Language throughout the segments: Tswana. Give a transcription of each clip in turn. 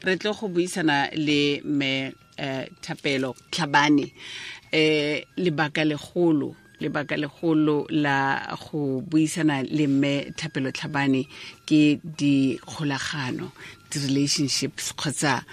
Re tlo go buisana le me Thapelo Tlhabane. Lebaka legolo la go buisana le mme Thapelo Tlhabane ke dikgolagano, di-relationships, kgotsa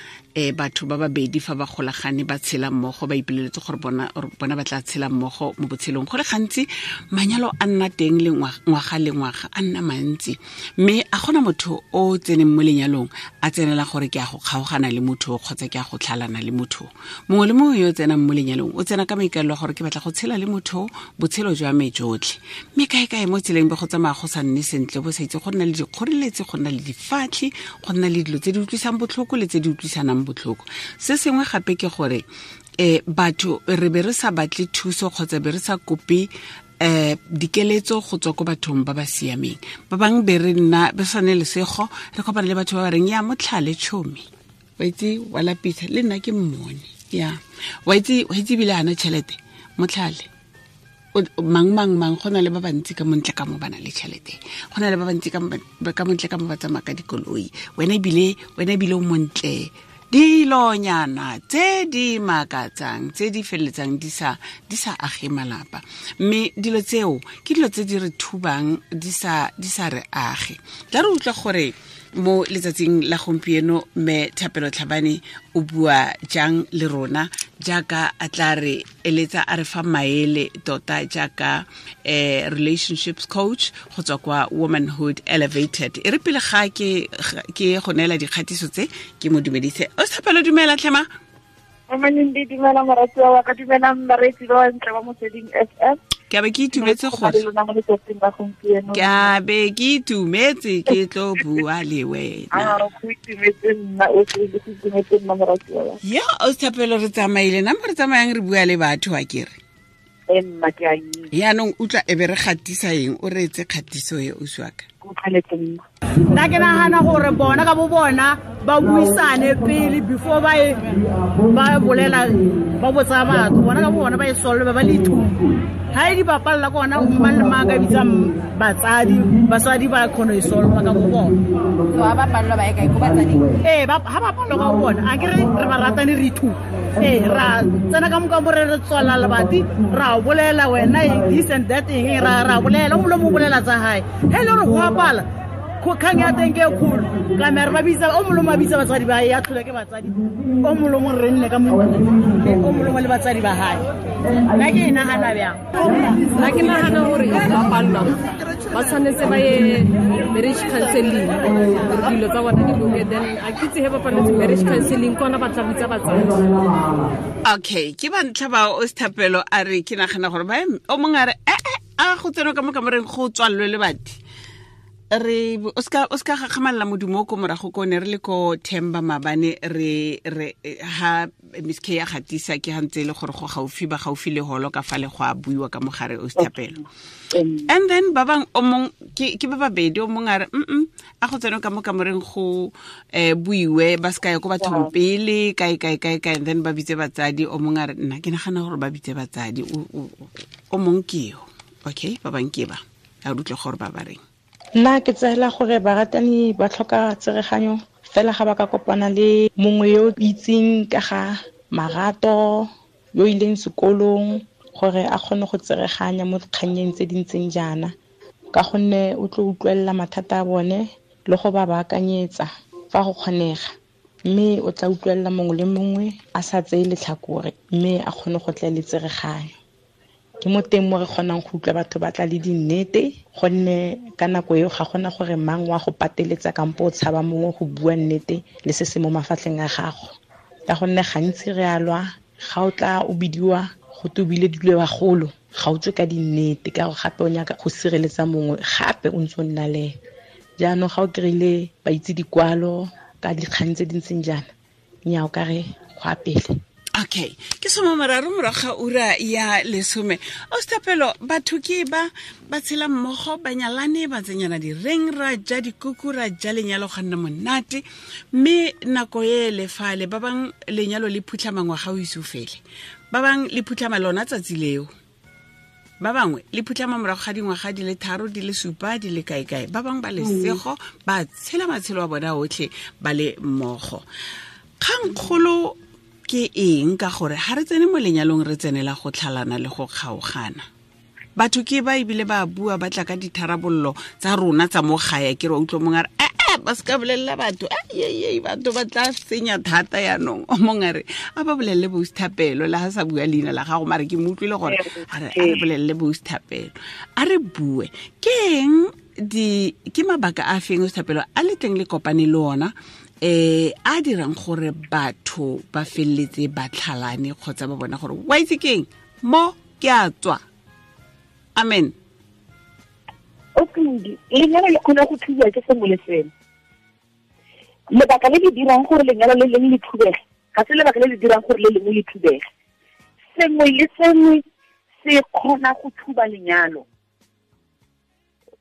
batho ba babedi fa ba golagane ba tshela mmogo, ba ipoleletse gore bona ba tla tshela mmogo mo botshelong. Go le gantsi manyalo a nna teng le ngwaga le ngwaga, a nna mantsi, mme a gona motho o tseneng mo lenyalong a tsenela gore ke a go kgaogana le motho kgotsa ke a go tlhalana le motho. Mongwe le mongwe yo o tsenang mo lenyalong o tsena ka maikaelelo a gore ke batla go tshela le motho botshelo jwa me jotlhe, mme kae-kae mo tseleng be go tsamaya go sa nne sentle, bo sa itse go nna le dikgoreletsi, go nna le difatlhi, go nna le dilo tse di utlwisang botlhoko le tse di utlwisanang botlhoko. Se sengwe gape ke gore batho re be re sa batle thuso kgotsa be re sa kope dikeletso go tswa ko bathong ba ba siameng. Ba bangwe be re nna be sa ne lesego, re kopana le batho ba ba reng ya motlhale tšhomi, wa itse wa lapisa, le nna ke mmone, ya wa itse ebile ana tšhelete motlhale mang mang mang. Go na le ba bantsi ka montle ka mo ba na le tšhelete, go na le ba bantsi ka montle ka mo ba tsamaya ka dikoloi, wena ebile o montle. Dilonyana tse di makatsang tse di feleletsang di sa age malapa, mme dilo tseo ke dilo tse di re thubang di sa re age. Tla re utlwa gore mo letsatsing la gompieno mme Thapelo Tlhabane o bua jang le rona, jaaka a tla re eletsa a re fa maele tota jaaka relationships coach go tswa kwa Womanhood Elevated. E re pele ga ke go neela dikgatiso tse ke mo dumedise. O Thapelo, dumela tlhema. Amanindi, dumela moratiwa wa ka, dumela bareetsi ba bantle ba Motsweding FM. Ke a be ke itumetse gore ke a be ke itumetse ke tlo bua le wena. Ya o Thapelo, re tsamaile nna mo re tsamayang re bua le batho a kere. Yaanong utlwa e be re gatisa eng, o reetse kgatiso e o siaka. Nna ke nagana gore bona ka bo bona ba buisane pele before ba bolela, ba botsa batho, bona ka bo bona ba e solve, ba le ithuta. Ha e di bapalla ke ona mang le mang ka bitsang batsadi, basadi ba kgona e solve ka bo bona. So ha ba pallwa ba ye kae, ko batsading? Ee, ha ba pallwa ka bo bona, a ke re re ba ratane re ithuta. Ee, ra tsena ka moka mo re re tswala lebati, ra bolela wena this and that eng, ra bolela, o mongwe o bolela tsa hae. He le gore go apala kgang ya teng ke e kgolo, ka mere ba bitsa o mongwe a bitsa batsadi ba ya tlhola ke batsadi, o mongwe re nne ka mo o mongwe le batsadi ba hae. Nna ke e nagana bjang? Nna ke nagana gore ba pallwa ba tshwanetse ba ye marriage counseling, dilo tsa bona di loke, then a ke itse he ba palletse marriage counseling kona ba tla bitsa batsadi. Okay, ke ba ntlha ba o Thapelo a re ke nagana gore ba o mongwe a re a go tsena ka mo kamoreng go tswallwe lebati. Re o ska gakgamalela modumo ko morago ko ne re le ko Themba mabane, re ha Miss K ya gatisa ke gantse le gore go gaufi ba gaufi le holo ka fa le go a buiwa ka mogare o Thapelo. And then ba bang o mong ke ba babedi, o mong a re a go tsena ka mo kamoreng go buiwe ba ska ya ko bathong pele kae kae kae kae, and then ba bitse batsadi. O mong a re nna ke nagana gore ba bitse batsadi, o mong ke yo. Okay, ba bang ke ba a utlwe gore ba ba reng. Nna ke tseela gore baratani ba tlhoka tsereganyo fela ga ba ka kopana le mongwe yo itseng ka ga marato, yo ileng sekolong, gore a kgone go tsereganya mo dikgannyeng tse di ntseng jaana, ka gonne o tlo utlwelela mathata a bone le go ba baakanyetsa fa go kgonega, mme o tla utlwelela mongwe le mongwe a sa tseye letlhakore, mme a kgone go tla le tsereganyo. Ke mo teng mo re kgonang go utlwa batho ba tla le dinnete, gonne ka nako eo ga gona gore mang wa go pateletsa kampo o tshaba mongwe go bua nnete le se se mo mafatlheng a gago. Ka gonne gantsi re a lwa, ga o tla o bidiwa go tobile dilo bagolo, ga o tswe ka dinnete, ka gore gape o nyaka go sireletsa mongwe gape o ntse o nna le ene. Jaanong ga o kry-ile ba itse dikwalo ka dikgang tse di ntseng jaana, nnyaa o ka re go a pele. Okay, ke 30 morago ga ura ya 10. O Thapelo, batho ke ba tshela mmogo, ba nyalane, ba tsenyana direng, ra ja dikuku, ra ja lenyalo ga nna monate, mme nako e le fale ba bang lenyalo le phutlhama ngwaga o ise o fele, ba bang le phutlhama lona tsatsi leo. Ba bangwe le phutlhama morago ga dingwaga di le 3 di le 7 di le kae kae. Ba bangwe ba lesego ba tshela matshelo a bona otlhe ba le mmogo. Kgangkgolo ke eng ka gore ha re tsene mo lenyalong re tsenela go tlhalana le go kgaogana? Batho ke ba ebile ba bua ba tla ka ditharabollo tsa rona tsa mo gae, ke re utlwa mongwe a re ba se ka bolelela batho, batho ba tla senya thata yaanong. O mongwe a re a ba bolelele boSthapelo, le ha sa bua leina la gago, mare ke mo utlwile gore a re bolelele boSthapelo. A re bue ke eng, ke mabaka a feng Sthapelo a le teng le kopane le ona a dirang gore batho ba felletse ba tlhalane kgotsa ba bona gore wa itse keng mo ke a tswa? Amen. Okay, lenyalo le kgona go thubiwa ke sengwe le sengwe. Lebaka le le dirang gore lenyalo le lengwe le thubege ga se lebaka le le dirang gore le lengwe le thubege. Sengwe le sengwe se kgona go thuba lenyalo.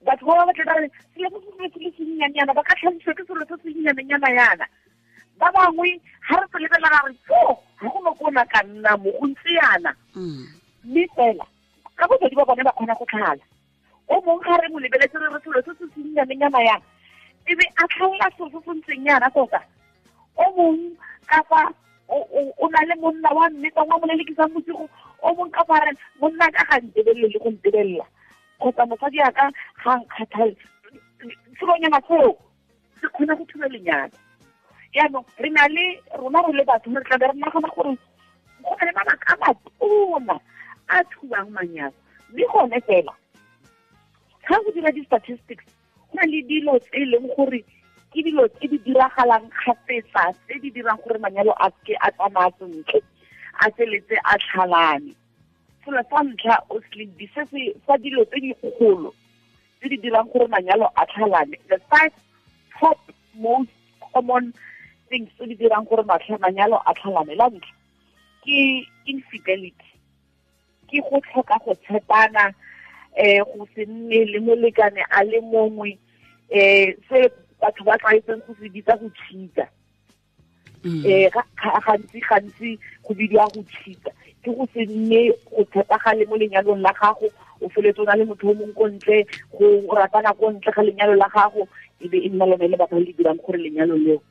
Batho ba ba tla ba re selo se se le sennyanyana, ba ka tlhalosiwa ke selo se sennyanyana yana. Ba bangwe ha re se lebelela ra re tso ga go no kona ka nna mo go ntse yana. Mme fela ka bobedi ba bone ba kgona go tlhala. O mongwe ga re mo lebeletse re re selo se se sennyanyana yana, e be a tlhaola selo se se ntseng yana tota. O mongwe ka fa o na le monna wa mme tsa mo lelekisang bosigo, o mongwe ka fa re monna ka ga ntebelele le go ntebelela, kgotsa mosadi a ka ga nkgathale, selonyana seo se kgona go thuba lenyalo. Jaanong re na le rona re le batho re tla be re nagana gore go na le mabaka a matona a thubang manyalo, mme gone fela ga go dira di-statistics go na le dilo tse e leng gore ke dilo tse di diragalang kgafetsa tse di dirang gore manyalo a ke a tsamaya sentle, a feletse a tlhalane. Selo sa ntlha o se se sa dilo tse dikgolo tse di dirang gore manyalo a tlhalane, the 5 top most common things tse di dirang gore manyalo a tlhalane, la ntlha ke infidelity, ke go tlhoka go tshepana, go se nne le molekane a le mongwe, se batho ba tlwaetseng go se bitsa go cheat-a. Gantsi go bidiwa go cheat-a, ke go se nne go tshepagale mo lenyalong la gago, o feletse o na le motho o mongwe ko ntle, go ratana ko ntle ga lenyalo la gago, e be e nna lone lebaka le le dirang gore lenyalo leo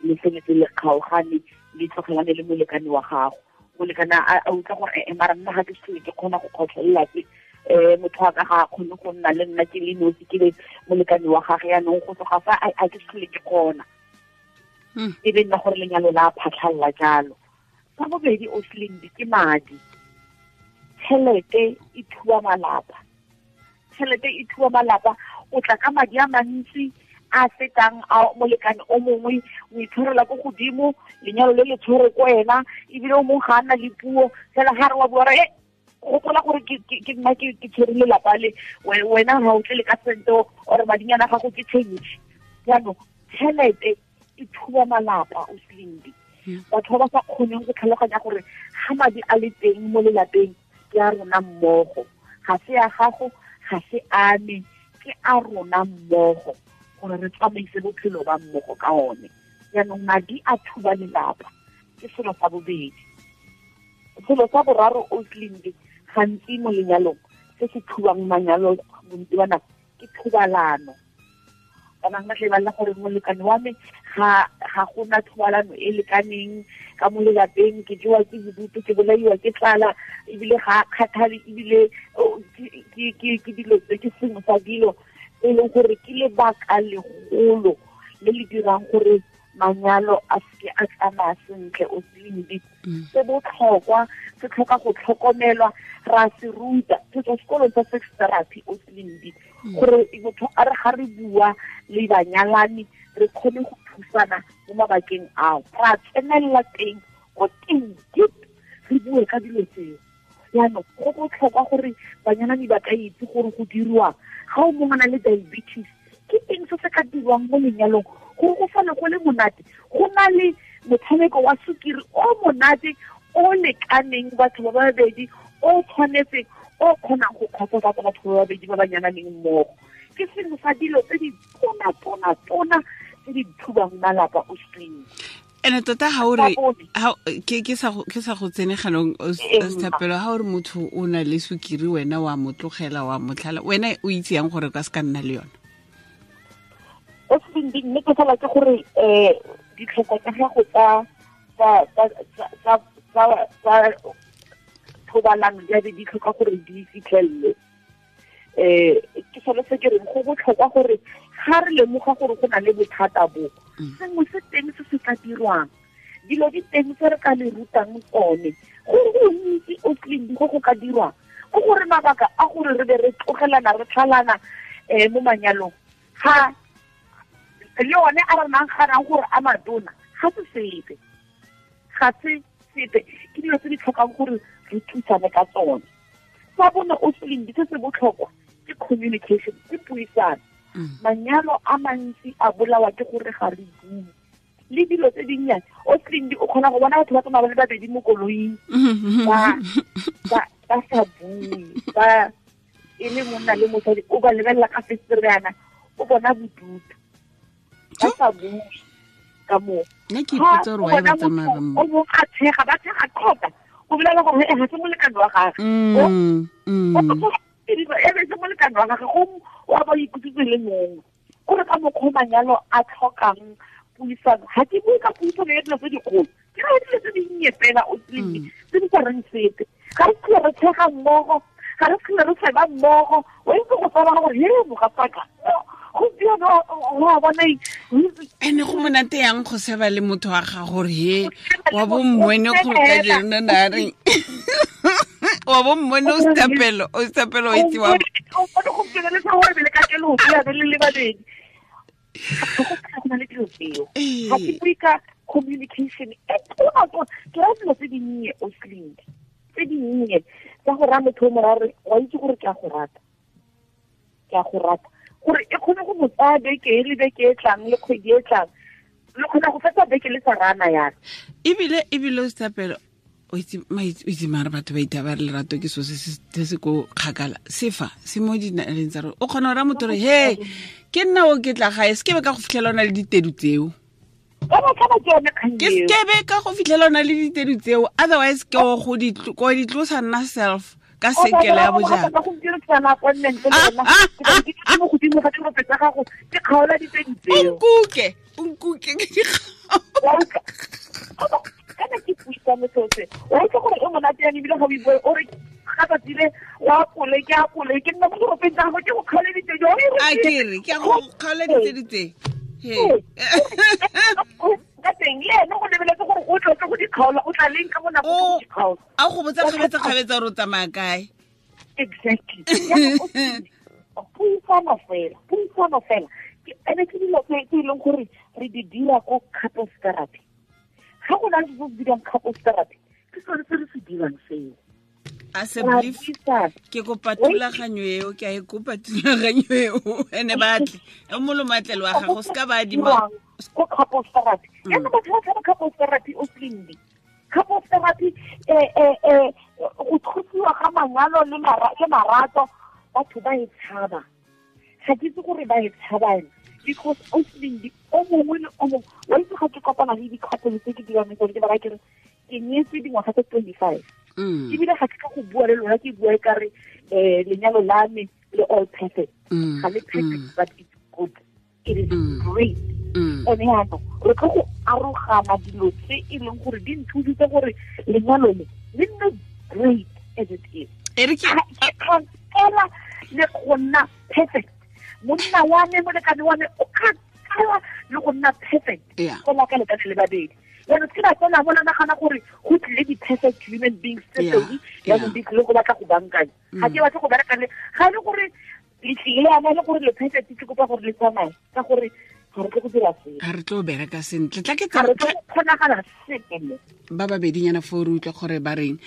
le feletse le kgaogane, le tlogelane le molekane wa gago. Molekane a utlwa gore mara nna ga ke se ke kgona go kgotlhelela tse, motho wa ka ga a kgone go nna le nna ke le nosi, ke le molekane wa gage, yaanong go tloga fa a ke se ke kgona. E be nna gore lenyalo la phatlhalla jalo. Sa bobedi o Slindi ke madi. Tšhelete e thuba malapa. Tšhelete e thuba malapa. O tla ka madi a mantsi a fetang a molekane o mongwe, o itshwarela ko godimo, lenyalo le le tshwere ko wena, ebile o mongwe ga a nna le puo fela ga re wa bua re gopola gore ke nna ke tshwere lelapa le wena ga o tle le ka sente or madinyana gago ke change. Jaanong tšhelete e thuba malapa o Slindi. Batho ba ba sa kgoneng go tlhaloganya gore ga madi a le teng mo lelapeng ke a rona mmogo, ga se a gago, ga se a me, ke a rona mmogo gore re tsamaise bophelo ba mmogo ka one. Jaanong madi a thuba lelapa, ke selo sa bobedi. Selo sa boraro o Slindi gantsi mo lenyalong se se thubang manyalo bontsi ba nako ke thobalano. Ba bangwe ba tle ba lla gore molekane wa me ga gona thobalano e lekaneng ka mo lelapeng, ke jewa ke bodutu, ke bolaiwa ke tlala, ebile ga a kgathale, ebile ke dilo tse ke sengwe sa dilo e leng gore ke lebaka legolo le le dirang gore manyalo a seke a tsamaya sentle o Slindi. Se botlhokwa, se tlhoka go tlhokomelwa, ra se ruta se tswa sekolong sa sex therapy o Slindi, gore motho a re ga re bua le banyalani re kgone go thusana mo mabakeng ao, ra tsenelela teng ko teng deep, re bue ka dilo tseo. Jaanong go botlhokwa gore banyalani ba ka itse gore go dirwang ga o mongwe a na le diabetes, ke eng se se ka dirwang mo lenyalong gore go sale go le monate, go na le motshameko wa sukiri o monate o lekaneng batho ba babedi, o tshwanetseng, o kgonang go kgotsofatsa batho ba babedi ba ba nyalaneng mmogo. Ke sengwe sa dilo tse di tona-tona-tona tse di thubang malapa o Slindi. Ene tota ha o re ke sa go tsene ganong Thapelo, ha o re motho o na le sukiri wena wa mo tlogela wa mo tlhala, wena o itse yang gore ka se ka nna le yone? O se mme ke fela ke gore ditlhoko tsa gago tsa thobalano di be di tlhoka gore di fitlhelele. Ke sone se ke reng go botlhokwa gore ga re lemoga gore go na le bothata bo, sengwe se teng se se ka dirwang, dilo di teng tse re ka le rutang tsone, gore go ntsi o tleng go go ka dirwang, go gore mabaka a gore re be re tlogelana re tlhalana mo manyalong ga le one a re nang ganang gore a matona ga se sepe, ga se sepe, ke dilo tse di tlhokang gore re thusane ka tsone. Sa bone o seleng se se botlhokwa ke communication, ke puisano. Manyalo a mantsi a bolawa ke gore ga re bue le dilo tse dinnyane. O seleng o kgona go bona batho ba tsamaya ba le babedi mo koloing ba sa bue, ba e le monna le mosadi, o ba lebelela ka fesereana, o bona bodutu, ba sa bue ka moo. Nna ke ipotsa gore why ba tsamaya ba o mongwe a tshega, ba tshega qota, o bolela gore ga se molekane wa gagwe, e be se molekane wa gagwe, go wa ba ikutlwetse le mongwe. Gore ka mokgwa manyalo a tlhokang puisano, ga ke bue ka puisano ya dilo tse dikgolo, ke ra dilo tse dinnye fela o tse di sa reng sepe. Ga re tlhole re tshega mmogo, ga re tlhole re seba mmogo, o itse go tsaba gore he mogatsaka gompieno wa bona. Ene go monate yang go seba le motho wa ga gore he wa bo mmone go ka jeno na reng wa bo mmone o Thapelo, o Thapelo o itse wa o gompieno le sa gore le ka kelo ya be le le babedi. Go na le dilo tseo. Ga ke bue ka communication e tona, ke ra dilo tse dinnye o sling, tse dinnye tsa go raya motho o mo raya wa itse gore ke a go rata, ke a go rata, gore e kgone go mo tsaya beke e le beke e tlang le kgwedi e tlang, le kgona go fetsa beke le sa rana yana. Ebile o Thapelo o itse mare batho ba itaba re lerato ke so se se ko kgakala, sefa se mo dinaleng tsa rona. O kgona go raya motho gore he ke nna o ke tla gae, se ke be ka go fitlhela o na le ditedu tseo, ke sekebe ka go fitlhela o na le ditedu tseo, otherwise ke go di tlosa nna self ka sekele ya bojang. O nkuke ke di kana ke puisano seo se wa itse gore e monate yang ebile ga o ibue o re ga tsatsi le wa apole ke apole ke nna mo diropeng tsa gago ke go kgaoleditse jo a ke re ke go kgaoleditse ditse he ka teng le ene go lebeletse gore o tlo go di kgaola, o tla leng ka bonako go di kgaola, a go botsa kgabetsa gore o tsamaya kae. Exactly. Puisano fela ene ke dilo tse e leng gore re di dira ko couples therapy. Ga go na le se se dirang couples therapy, ke sone se re se dirang seo. A se belief ke kopa thulaganyo eo, ke a e kopa thulaganyo eo, ene batle o molomatlelo wa gago se ka ba adima ko couples therapy. Yana batho ba tshaba couples therapy o slindi. Couples therapy go thusiwa ga manyalo le marato, batho ba e tshaba. Ga ke itse gore ba e tshabang because o slindi o mongwe le o mongwe wa itse ga ke kopana le di-couple tse ke dirang tsone, ke ba raya ke re ke nyetswe dingwaga tse 25, ebile ga ke ka go bua le lona ke bua e kare lenyalo la me le all perfect, ga le perfect but it's good, it is great. Ene yaanong re tlo go arogana dilo tse e leng gore di nthusitse gore lenyalo le le nne great as it is. Ke kgona le go nna perfect, monna wa me molekane wa me o kgakala le go nna perfect fela ka lekane le babedi. Jaanong ke ba tsena bona nagana gore go tlile di-perfect human beings tse pedi, jaanong di tlile go batla go bankanya. Ga ke batle go bereka le ga e le gore le tlile yana le gore le perfect, ke kopa gore le tsamaye ka gore ga re tle go dira sepe, ga re tlo bereka sentle, tla ke ga re tlo go kgonagala sepe mo. Ba babedinyana fo re utlwa gore ba reng.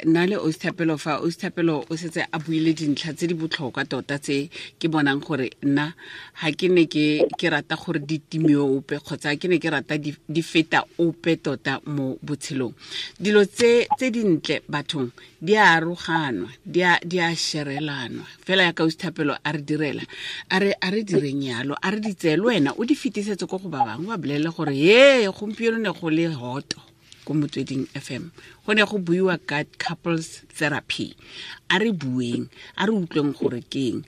Nna le Osthapelo fa, Osthapelo o setse a buile dintlha tse di botlhokwa tota tse ke bonang gore nna ga ke ne ke rata gore di time ope kgotsa ke ne ke rata di feta ope tota mo botshelong. Dilo tse dintle bathong Di a aroganwa, di a sherelanwa fela ya ka Thapelo a re direla, a re direng yalo, a re di tseye le wena o di fetisetse ko go ba bangwe, ba bolelele gore ye gompieno ne go le hoto ko Motsweding FM, go ne go buiwa ka couples therapy. A re bueng, a re utlweng gore keng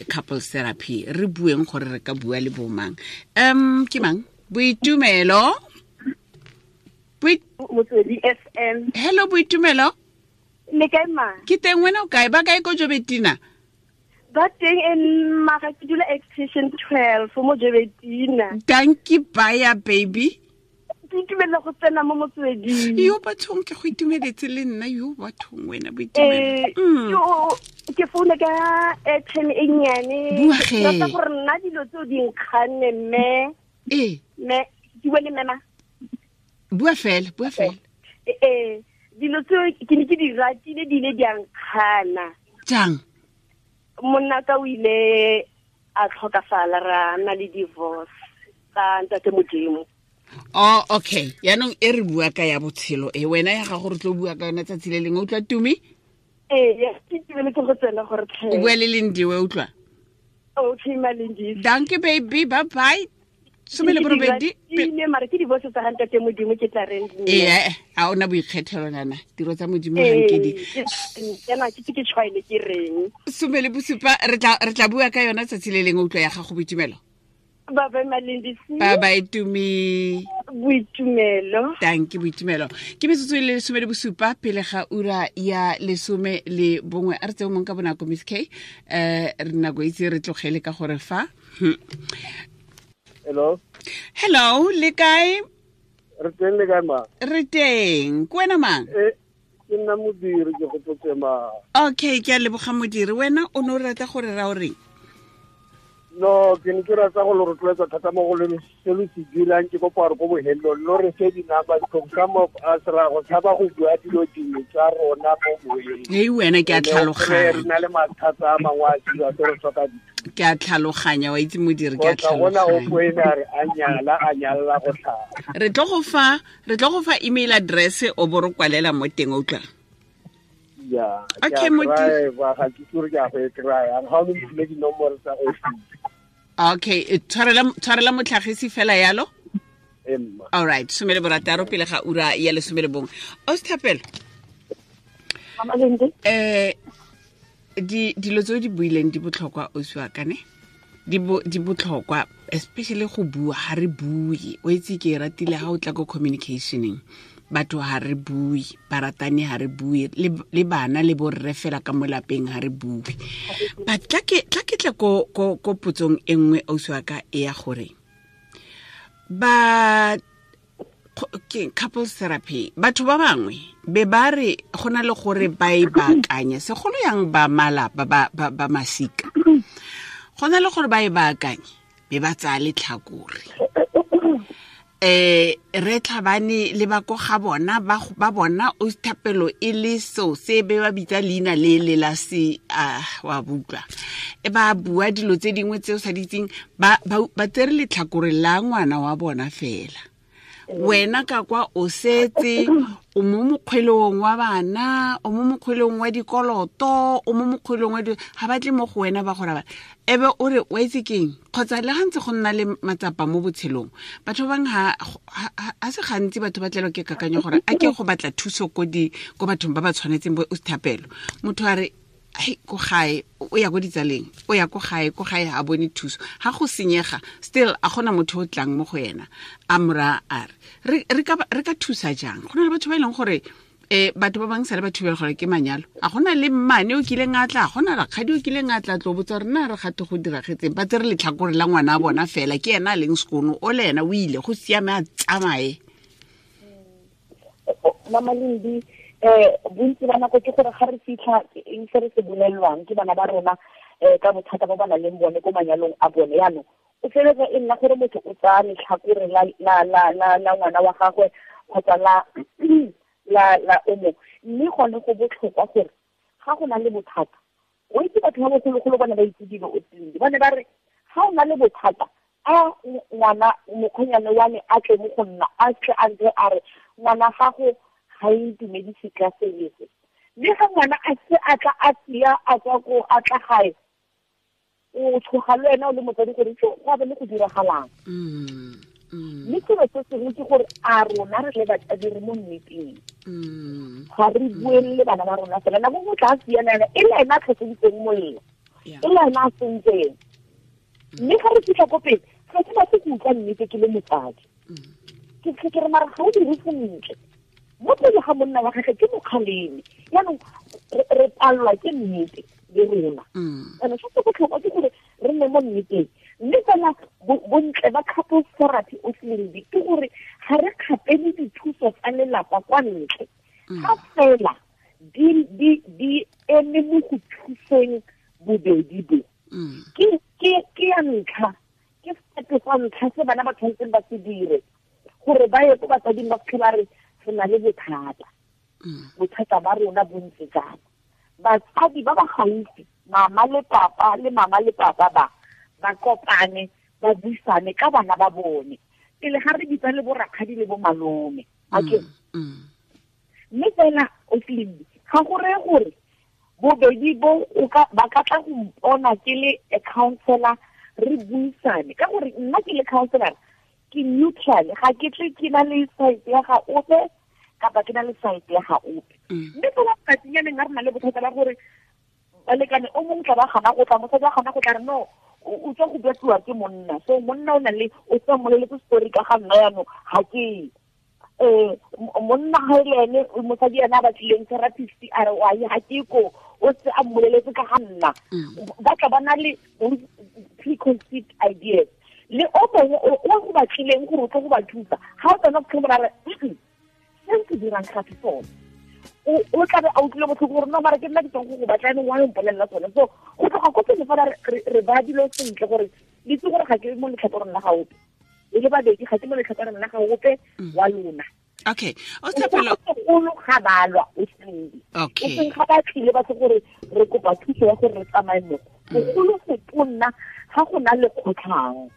couples therapy, re bueng gore re ka bua le bomang. Ke mang? Boitumelo. Motswedi FM. Hello Boitumelo. Le kae ma? Ke teng, wena o kae? Ba kae ko Jobetina? Ba teng, en mara ke dula extension 12 mo Jobetina. Dankie baya baby. Ke itumela go tsena mo Motsweding. Yo bathong, ke go itumeletse le nna, yo bathong wena Boitumelo. Ke founa ka airtime e nnyane. Bua ge. Rata gore nna dilo tseo di nkganne mme. Mme, ke bua le mme ma? Bua fela, bua fela. Dilo tseo ke ne ke di ratile, di ile di a nkgana. Jang? Monna ka o ile a tlhokafala, ra nna le divorce ka ntate Modimo. Oh, okay. Yaanong e re bua ka ya botshelo e, wena ya gago re tlo bua ka yona tsatsi le lengwe. Utlwa Tumi? Ee, ya, ke itumeletse go tsena gore tlhe. O bua le Lindiwe, utlwa? Okay, ma Lindiwe. Dankie baby, bye bye. 18. Ke mara ke divorce tsa ga ntate Modimo ke tla reng. Ee, a ona boikgethelo nana, tiro tsa Modimo ga nke di. Kana ke ke tshwaile ke reng. 17, re tla bua ka yona tsatsi le lengwe. Utlwa ya gago Boitumelo. Bye bye Malindisi. Bye bye Tumi. Boitumelo. Thank you Boitumelo. Ke metsotso e le 17 pele ga ura ya 11. A re tseo mong ka bonako Miss K. Re nako itse re tlogele ka gore fa. Hello. Hello, le kae? Re teng, le kae ma? Re teng. Ke wena mang? Ke nna Modiri, ke gopotse ma. Okay, ke a leboga Modiri. Wena o ne o rata gore ra o reng? No, ke ne ke rata go lo rotloetsa thata mo go le se lo se dirang, ke kopa gore ko bohelong lo re fe di-number because some of us ra go tshaba go bua dilo dingwe tsa rona mo moyeng. Hei wena, ke a tlhaloganya. Re na le mathata a mangwe a dira tse re tlhoka dithuso. Ke a tlhaloganya, wa itse Modiri, ke a Kgotsa gona o tlhaloganya. poene a re a nyala, a nyalla go tlhaba. Re tlo go fa email address o bo re kwalela mo teng, o utlwa? Ya, ke Okay, a Modiri. drive-a, ga ke itse gore ke a go e kry-a. Ga o mphile dinomoro tsa office. Okay, tshwarela motlhagisi fela yalo? Emma. All right, 16 pele ga ura ya 11. Osthapelo. Mama Lindi. Dilo tse o di buileng di botlhokwa, ausi wa ka, ne? Di botlhokwa, especially go bua, ha re bue. O itse ke e ratile ha o tla ko communicationeng. Batho ha re bue, baratani ha re bue, le bana le borre fela ka mo lapeng ha re bue. But tla ke tle ko potsong e nngwe, ausi wa ka, e ya gore ba ke couples therapy, batho ba bangwe be ba re go na le gore ba e baakanye, segolo yang ba malapa, ba masika, go na le gore ba e baakanye be ba tsaya letlhakore. Re tlhabane le ba ko ga bona, ba bona o Thapelo e le so se be ba bitsa leina le le la se, wa butlwa. E ba bua dilo tse dingwe tse o sa di itseng, ba tsere letlhakore la ngwana wa bona fela. Wena ka kwa o setse o mo mokgwelong wa bana, o mo mokgwelong wa dikoloto, o mo mokgwelong wa ha ba tle mo go wena ba go raba. Ebe o re wa itse keng, kgotsa le ga ntse go nna le matsapa mo botshelong, batho ba bangwe ha se gantsi batho ba tlelwa ke kakanyo gore a ke go batla thuso ko bathong ba ba tshwanetseng bo Thapelo. Motho a re, hei, ko gae, o ya ko ditsaleng, o ya ko gae, ko gae ha bone thuso. Ha go senyega, still a gona motho o tlang mo go yena, a mo raya a re, re ka thusa jang? Go na le batho ba e leng gore, batho ba bangwe sale ba thubela gore ke manyalo. A gona le mmane o kileng a tla, a gona rakgadi o kileng a tla tlo botsa gore na re gate go diragetseng. Ba tsere letlhakore la ngwana a bona fela, ke ena a leng sekono, o le ena o ile, go siame a tsamaye. Mama Lindi, bontsi ba nako ke gore ga re fitlha eng se re se bolelwang ke bana ba rona, ka bothata ba ba nang le bone ko manyalong a bone. Yaanong o feleletsa e nna gore motho o tsaya letlhakore la ngwana wa gagwe kgotsa la o mongwe. Mme gone go botlhokwa gore ga go na le bothata, o itse batho ba bogologolo ba ne ba itse dilo o tsile. Ba ne ba re ga o na le bothata, a ngwana mokgwenyane wa me a tle mo go nna, a tle a ntse a re ngwana gago ga e ntumedise ka selese. Mme ga ngwana a se a tla a sia a tswa ko a tla gae, o tshoga le wena o le motsadi gore go a be le go diragalang. Mme selo se sengwe ke gore a rona re le batsadi re mo nneteng, ga re buelele bana ba rona fela. Nako nngwe tla siana ena e le ena a tlhoseditseng molelo, e le ena a sentseng. Mme ga re fitlha ko pele ga ke batle go utlwa nnete ke le motsadi, ke re mara ga o dire sentle mo pele ga monna wa gagwe ke mokgaleme. Jaanong re palelwa ke nnete le rona. And se se botlhokwa ke gore re nne mo nneteng. Mme fela bontle ba couples therapy o seledi ke gore ga re kgapele dithuso tsa lelapa kwa ntle, ga fela di eme mo go thuseng bobedi bo. Ke ya ntlha, ke step sa ntlha se bana ba tshwanetseng ba se dire gore ba ye ko batsading ba fitlhe ba re re na le bothata, bothata ba rona bo ntse jang. Batsadi ba ba gaufi, mama le papa le mama le papa ba kopane ba buisane ka bana ba bone pele ga re bitsa le borakgadi le bo malome. Okay. Mme fela o tlile ga go reye gore bobedi bo ba ka tla go mpona ke le a counselor re buisane, ka gore nna ke le counselor ke neutral, ga ke tle ke na le side ya ga ope kapa ke na le side ya ga ope. Mme fela tsatsinyane ga re na le bothata ba gore balekane o mongwe tla ba gana go tla, mosadi wa gana go tla re no o tswa go betliwa ke monna, so monna o na le o tswa mmoleletse story ka ga nna jaanong ga ke monna ga e le ene mosadi ena a batlileng therapist a re wa ga ke ko o se a mmoleletse ka ga nna. Ba tla ba na le preconceived ideas. Le o mongwe o go batlileng gore o tlo go ba thusa, ga o tsena go tlhola re se se dirang ga se sone, o tla be a utlwile botlhoko gore no mara ke nna ke tswang go go batla ene wa mpolelela tsone. So go tloga ko pele fela re ba dilo sentle gore le itse gore ga ke mo letlhakoreng la ga ope, e le babedi ga ke mo letlhakoreng la ga ope wa lona. Okay. O Thapelo golo ga balwa o seng. Okay. O seng ga ba tlile ba se gore re kopa thuso ya gore re tsamaye mo. Bogolo go tonna ga go na le kgotlhang.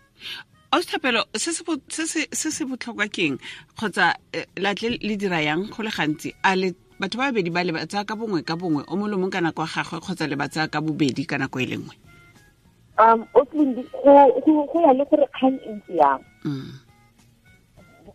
O Thapelo se se botlhokwa keng kgotsa latle le dira yang go le gantsi a le batho ba babedi ba le ba tsaya ka bongwe ka bongwe o molomong ka nako ya gagwe kgotsa le ba tsaya ka bobedi ka nako e le nngwe? O tlindi go ya le gore kgang e ntse yang.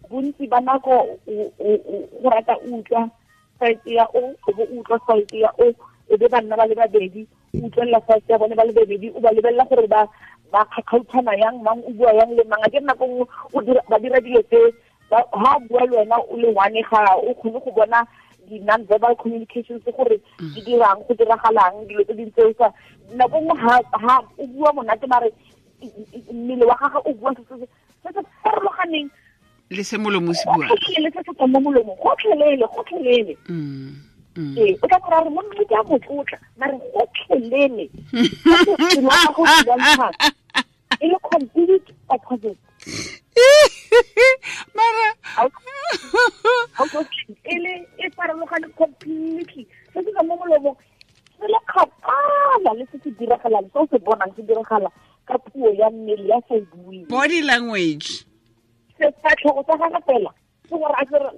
Bontsi ba nako go rata utlwa side ya o bo utlwa side ya o e be banna ba le babedi o utlwelela side ya bone ba le babedi o ba lebelela gore ba kgakgautshana yang mang o bua yang le mang. A ke nako nngwe ba dira dilo tse ha bua le wena o le one ga o kgone go bona di-non-verbal communications gore di dirang go diragalang dilo tse dintse o sa nako nngwe ha o bua monate mare mmele wa gagwe o bua se se farologaneng le se molomo se bua le se se tswang mo molomong gotlhelele. Ee, o tla kora re monna ke a motlotla mare gotlhelele e le complete opposite. Mara e le e farologane completely. Se se tswang mo molomong se le kgakala le se se diragalang, se o se bonang se diragala ka puo ya mmele ya sa e bueng, body language. Sefatlhego sa gagwe fela ke gore a kere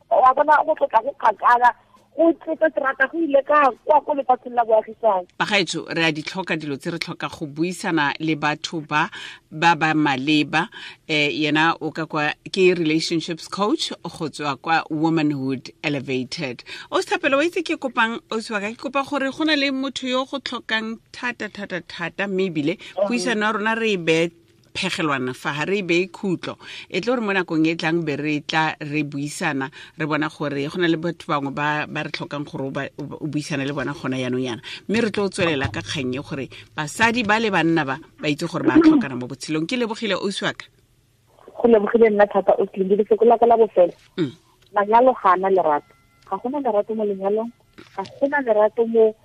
wa bona go tlotla go kgakala go tlotla terata go ile ka kwa ko lefatsheng la boagisane. Bagaetsho re a di tlhoka dilo tse re tlhoka go buisana le batho ba ba maleba. Yena o ka kwa ke relationships coach go tswa kwa Womanhood Elevated. O Thapelo wa itse ke kopang o tswa ke kopa gore go na le motho yo go tlhokang thata thata thata mme ebile puisano ya rona re e be phegelwana fa ha re be khutlo e tlo re mo nakong e tlang be re tla re buisana re bona gore go na le batho bangwe ba re tlhokang gore o buisana le bona gona yanong yana mme re tlo tswelela ka kgang e gore basadi ba le banna ba itse gore ba tlhokana mo botshelong. Ke lebogile ausi wa ka. Go lebogile nna thata o tlile lefoko la ka la bofelo. Manyalo ga ana lerato, ga gona lerato mo lenyalong, ga gona lerato mo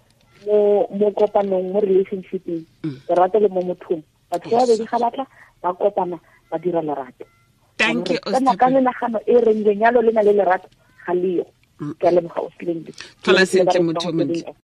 kopanong, mo relationshipeng. Lerato le mo mothong. Batho ba babedi ga batla ba kopana ba dira lerato. Thank you. Ka menagano e reng lenyalo le na le lerato ga leo. Ke a leboga o Slindi. Tlhola sentle motho o montle.